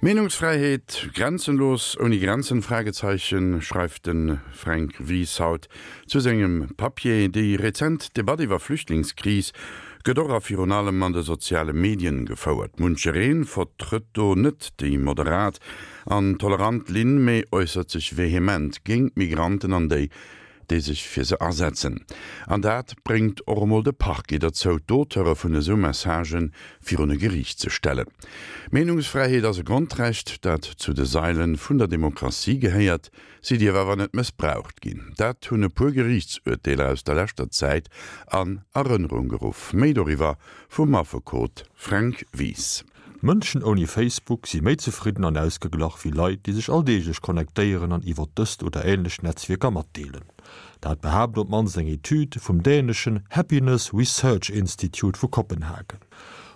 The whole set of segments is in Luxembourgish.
Meenungsfräiheet, grenzenlos, ouni Grenzen? Fragezeichen, schreift de Fränk Wies haut zu sengem Papier. Déi rezent Debatt iwwer Flüchtlingskris gëtt och a virun allem an de soziale Medien gefouert. Munchereen vertrëtt do net déi moderat an tolerant Linn, mee äussert sech vehement géint Migranten an déi, déi sech fir se asetzen. An dat bréngt och emol de Parquet derzou, d'Auteure vun esou Messagë virun e Geriicht ze stellen. Meenungsfräiheet ass e Grondrecht, dat zu de Saile vun der Demokratie gehéiert. Si dierf awer net mëssbraucht ginn. Dat hunn e puer Geriichtsurteeler aus der leschter Zäit an Erënnerung geruff. Méi doriwwer vum Affekot Fränk Wies. Mënschen ouni Facebook si méi zefridden an ausgeglach wéi Leit, déi sech alldeeglech connectéieren an iwwer dëst oder änlech Netzwierker matdeelen. Dat behaapt op d'mannst eng Etüd vum däneschen Happiness Research Institute vu Kopenhagen.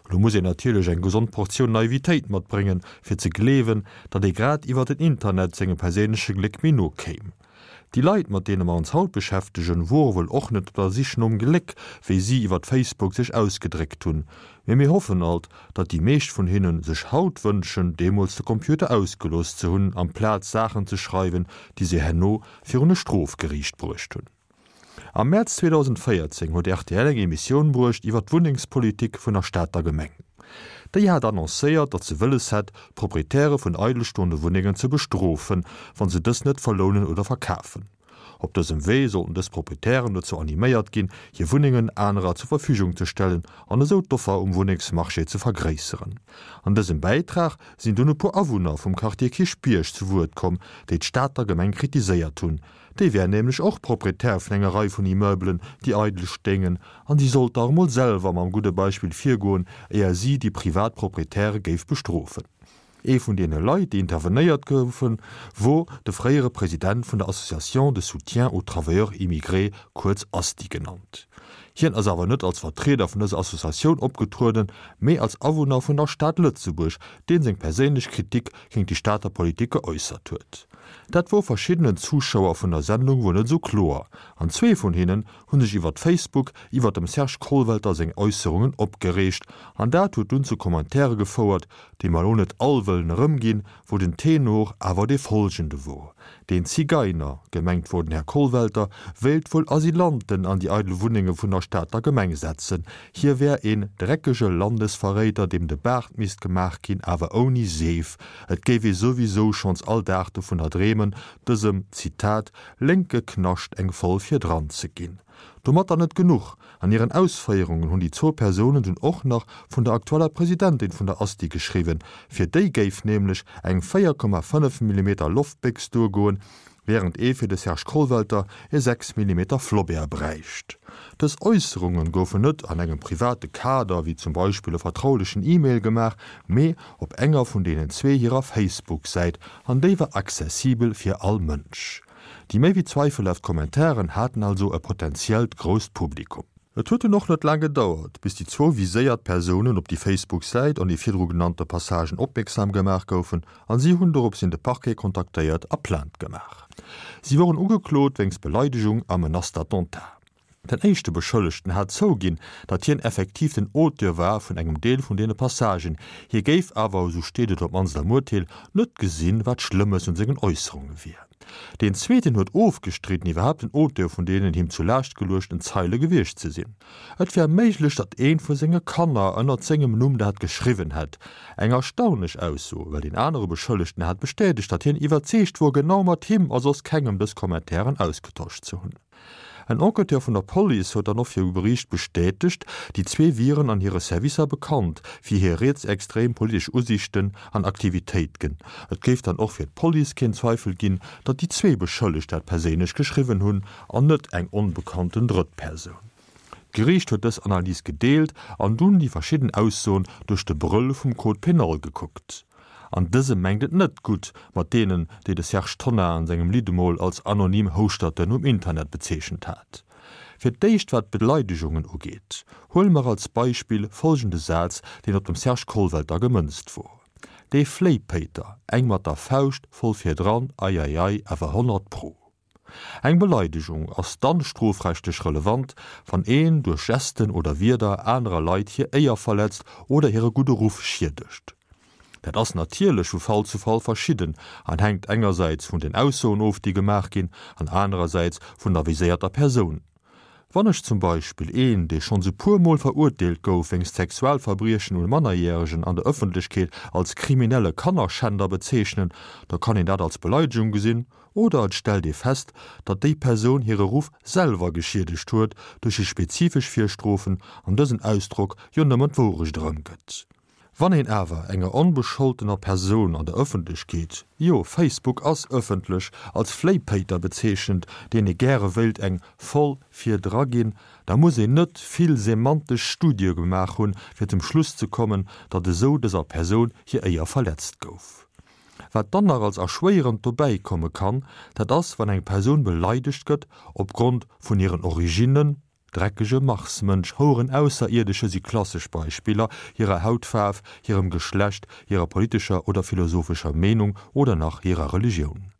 Elo muss een natierlech eng gesond Portioun Naivitéit matbréngen, fir ze gleewen, datt ee grad iwwer den Internet sengem perséinleche Gléck méi no kéim. Déi Leit, mat deene mer ons haut beschäftegen, wore wuel och net op der Sich nom Gléck, wéi si iwwert Facebook sech ausgedréckt hunn. Mee mir hoffen alt, datt déi meescht vun hinnen sech haut wënschen, deemools de Computer ausgelooss ze hunn, amplaz Saachen ze schreiwen, déi se herno virun e Strofgeriicht bruecht hunn. Am Mäerz 2014 huet rtl eng Emissioun bruecht iwwer d'Wunnengspolitik vun der Stater Gemeng. Déi hat annoncéiert, datt se wëlles hätt, d'Proprietäre vun eidelstoende Wunnengen ze bestrofen, wa se dës net verlounen oder verkafen. Op dësem Wee sollten dës Proprietären dozou animéiert ginn, hir Wunnengen anerer zur Verfügung ze stellen an esou d'Offer um Wunnengsmarché ze vergréisseren. An dësem Bäitrag sinn dunn e puer Awunner vum Quartier Kierchbierg zu Wuert komm, déi d'Stater Gemeng kritiséiert hunn, Déi wär nämlech och Proprietär vun enger Rei vun Immeubelen, déi eidel stéingen, an si sollt dach emol selwer mam gudde Beispill virgoen, éier si déi privat Proprietäre géif bestrofen. Ee vun deene Leit, déi intervenéiert goufen, wor de fréiere President vun der Association de soutien aux travailleurs immigrés, kuerz ASTI genannt. Hien ass awer net als Vertrieder vun dëser Associatioun opgetrueden, mee als Awunner vun der Stad Lëtzebuerg, deen seng perséinlech Kritik géint déi Stater Politik geäussert huet. Dat wor verschiddenen Zuschauer vun der Sendung wuel net esou kloer, an zwee vun hinnen hu sech iwwert Facebook iwwert dem Serge Kollwelter seng Äusserungen opgereegt, an dat huet dunn zu Commentaire gefouert, déi mer elo net all wëllen erëmginn, wou den Tenor awer dee folgende wor, Deen Zigeiner, gemengt wor den Här Kollwelter, wéilt wuel Asylanten an déi eidel Wunnenge vun der Stater Gemeng setzen. Hie wär een dreckege Landesverréider, deem de Baart misst gemaach ginn, awer ouni Seef. Et géif ee souwisou schonns all Dag dovunner dreemen, dësem, Zitat, lénke Knascht eng voll virdran ze ginn. Domatter net genuch, An hiren Ausféierungen hunn déi zwou Persounen dunn och nach vun der aktueller Presidentin vun der Asti geschriwwen, fir déi géif nämlech eng 4,5 Millimeter Loftbéchs duergoen, wärend ee fir de Serge Kollwelter e 6 Millimeter Flobert bräicht. Dës Äusserunge goufen net an engem private Kader, wéi zum Beispill e vertraulechen E-Mail gemaach, mee op enger vun deenen zwee hirer Facebook-Säit, an déi war accessibel fir all Mënsch. Déi méi wéi zweifelhaft Kommentaren haten also e potentiellt grousst Publikum. Et huet dunn och net laang gedauert, bis déi zwou viséiert Persounen op déi Facebook-Säit an déi virdru genannte Passagen opmierksam gemaach goufen an si hunn doropshin de Parquet kontaktéiert a Plainte gemaach. Si woren ugeklot wéinst Beleidegung a Menace d'attentat. Den éischte Beschëllegten hat zouginn, datt hien effektiv den Auteur war vun engem Deel vun deene Passagen. Hie géif awer, esou steet et op d'mannst am Urteel, net gesinn, wat Schlëmmes un sengen Äusserunge wier. Deen zweeten huet ofgestridden, iwwerhaapt den Auteur vun deenen him zu Laascht geluechten Zeile gewiescht ze sinn. Et wär méiglech, datt eent vu senge Kanner ënnert sengem Numm dat geschriwwen hätt. Eng erstaunlech Ausso, well deen anere Beschëllegten hat bestätegt, datt hien iwwerzeegt wor, genau mat him a soss kengem dës Kommentairen ausgetosch ze hunn. En Enquêteur vun der Police huet dann och viru Geriicht bestätegt, déi zwee wieren an hire Servicer bekannt fir hir rietsextrem politesch Usiichten an Aktivitéitgen. Et géif dann och fir d'Police keen Zweifel ginn, datt déi zwee Beschëllegt dat perséinlech geschriwwen hunn an net eng onbekannten Drëttpersoun. D'Geriicht huet dës Analys gedeelt an dunn déi verschidden Aussoen duerch de Brëll vum Code pénal gekuckt. An dësem mengt et net gutt mat deenen, déi de Serge Tonnar an sengem Lidd emol als anonym Houschterten um Internet bezeechent hat. Fir d'éischt wat d'Beleidegungen ugeet. Huele mer als Beispill folgende Saz, deen op dem Serge Kollwelter gemënzt wor, Dee Fléipéiter, eng mat der Fauscht voll virdran, eieiei, awer 100 pro. Eng Beleidegung ass dann strofrechtlech relevant, wann een duerch Gesten oder Wierder anerer Leit hir Éier verletzt oder hire gudde Ruff schiedegt. Dat ass natierlech vu Fall zu Fall verschidden an hänkt engersäits vun den Aussoen of, déi gemaach ginn, an anerersäits vun der viséierter Persoun. Wann ech zum Beispill een, dee schonns e puer Mol verurteelt gouf wéinst Sexualverbriechen un Mannerjäregen an der Ëffentlechkeet als kriminelle Kannerschänder bezeechnen, da kann een dat als Beleidegung gesinn oder et stellt ee fest, datt déi Persoun hire Ruff selwer geschiedegt huet duerch déi spezifesch Virstrofen an dësen Ausdrock jo nëmmen d'Wourecht erëmgëtt. Wann een awer enger onbescholtener Persoun an der Ëffentlechkeet, jo, Facebook ass ëffentlech, als Fléipéiter bezeechent, deen ee gäre wéilt eng voll vir dra ginn, da muss een net vill semantesch Studie gemaach hunn, fir zum Schluss ze kommen, datt esou dëser Persoun hir Éier verletzt gouf. Wat dann nach als erschwéierend dobäi komme kann, dat ass, wann eng Persoun beleidegt gëtt opgrond vun hiren Originnen, Dreckege Marsmënsch, Houeren Ausserierdesche si klassesch Beispiller, hirer Hautfaarf, hirem Geschlecht, hirer politescher oder philosophescher Meenung oder nach hirer Religioun.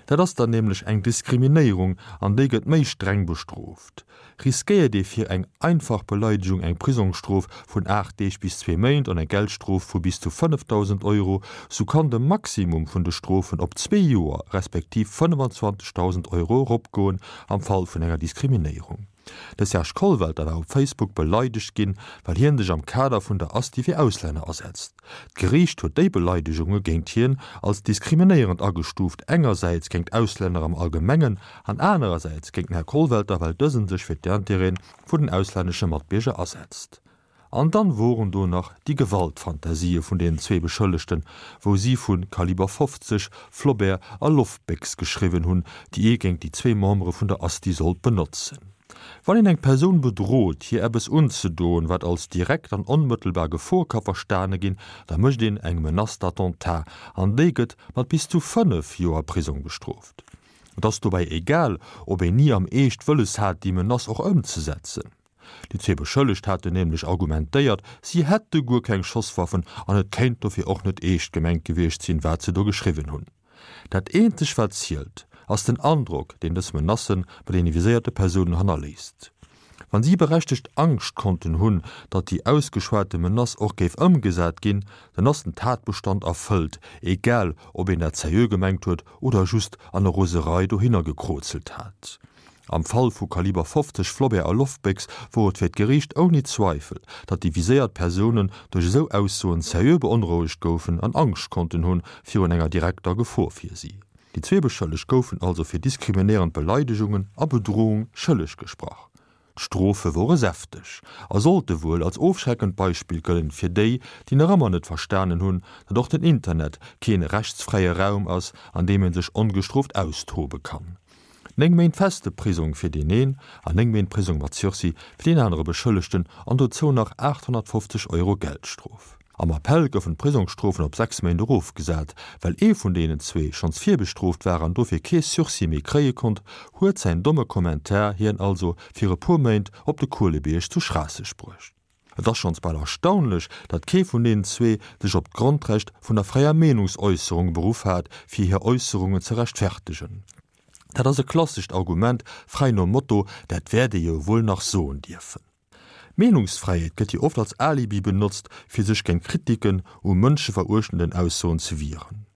Dat ass dann nämlech eng Diskriminéierung an déi gëtt méi streng bestrooft. Riskéiert ee fir eng einfach Beleidegung eng Prisongsstrof vun 8 Deeg bis zwee Méint an eng Geldstrof vu bis zu 5.000 Euro, sou kann de Maximum vun de Strofen op zwee Joer respektiv 25.000 Euro eropgoen am Fall vun enger Diskriminéierung. De Serge Kollwelter war op Facebook beleidegt ginn, well hien sech am Kader vun der Asti fir Auslänner asetzt. D'Geriicht huet déi Beleidegunge géint hien als diskriminéierend agestuuft, engersäits géint Auslänner am Allgemengen an anerersäits géint den Här Kollwelter, well dësen sech fir d'Intérêtë vun den auslännesche Matbierger asetzt. An dann woren do nach déi Gewaltfantasië vun deenen zwee Beschëllegten, wou si vu Kaliber 50, Flobert a Loftbéchs geschriwwen hunn, déi ee géint déi zwee Membere vun der Asti sollt benotzen. Wann een eng Persoun bedrot, hir eppes unzedoen, wat als direkt an onmëttelbar Gefor ka verstane ginn, da mécht een eng Menace d'attentat an déi gëtt mat bis zu 5 Joer Prisong bestrooft. Et ass dobäi egal, ob een ni am Eescht wëlles hat, déi Menace och ëmzesetzen. Déi zwee Beschëllegt haten nämlech argumentéiert, si hätte guer keng Schosswaffen an et kéint dofir och net eescht gemengt gewiescht sinn, wat se do geschriwwen hunn. Dat eenzeg wat zielt, ass den Androck, deen dës Menacë bei deene viséierte Persounen hannerléisst. Wann si berechtegt Angscht konnten hunn, datt déi ausgeschwate Menace och géif ëmgesat ginn, dann ass den Tatbestand erfëllt, egal ob een dat seriö gemengt huet oder just an der Roserei dohinner gekrozelt hat. Am Fall vu Kaliber 50 Flobert a Loftbéchs wor et fir d'Geriicht ouni Zweifel, datt déi viséiert Persounen duerch esou Aussoen seriö beonrouegt goufen an Angscht konnten hunn virun enger direkter Gefor fir si. Déi zwee Beschëllegt goufen also fir diskriminéierend Beleidegungen a Bedrohung schëlleg gesprach. D'Strofe wore säfteg a sollte wuel als ofschreckend Beispill gëllen fir déi, déi nach ëmmer net verstanen hunn, datt och den Internet keen rechtsfräie Raum ass, an deem ee sech ongestrooft austobe kann. 9 Méint feste Prisong fir deen een an 9 Méint Prisong mat Sursis fir deen anere Beschëllegten an dozou nach 850 Euro Geldstrof. Am Appell goufen d'Prisongsstrofen op 6 Méint erofgesat. Well ee vun deenen zwee schonns virbestrooft war an dofir kee Sursis méi kréie konnt, huet säin domme Kommentar hien also fir e puer Méint op de Kuelebierg zu Schraasseg bruecht. Et ass schonns bal erstaunlech, datt kee vun deenen zwee sech op d'Grondrecht vun der fräier Meenungsäusserung beruff hat, fir hir Äusserungen ze rechtfertegen. Dat ass e klassescht Argument, fräi nom Motto, dat wäert ee jo wuel nach soen dierfen. D'Meenungsfräiheet gëtt jo oft als Alibi benotzt, fir sech géint Kritiken u mënscheveruechtenden Aussoen ze wieren.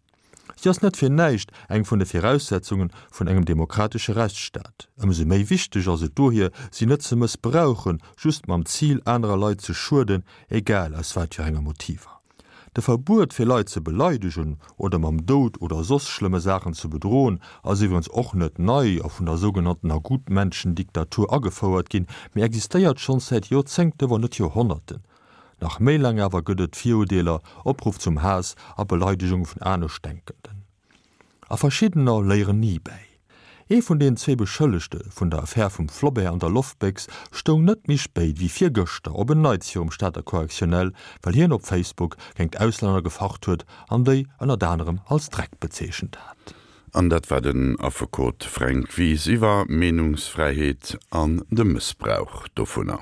Si ass net fir näischt eng vun de Viraussetzunge vun engem demokratesche Rechtsstaat. Ëmsou méi wichteg ass et dohier, si net ze mëssbrauchen, just mam Zil, anerer Leit ze schueden, egal aus wat fir enger Motiver. De Verbuet fir Leit ze beleidegen oder mam Doud oder soss schlëmme Saachen ze bedroen, ass iwwerens och net nei a vun der sougenanntener Gutmenschendiktatur agefouert ginn, mee existéiert schonns säit Joerzéngte wann net Joerhonnerten. Nach méi laang awer gëtt et Virudeeler, Opruff zum Haass a Beleidegung vun Aneschtdenkenden. A verschiddener léieren ni bäi. Ee vun den zwee Beschëllegte vun der Affär vum Flobert an der Loftbéchs stoung net méi spéit wéi virgëschter op en Neits virum Stater Correctionnel, well hien op Facebook géingt Auslänner gefacht huet an déi ënnert anerem als Dreck bezeechent hat. An dat war den Affekot Fränk Wies iwwer Meenungsfräiheet an de Mëssbrauch dovunner.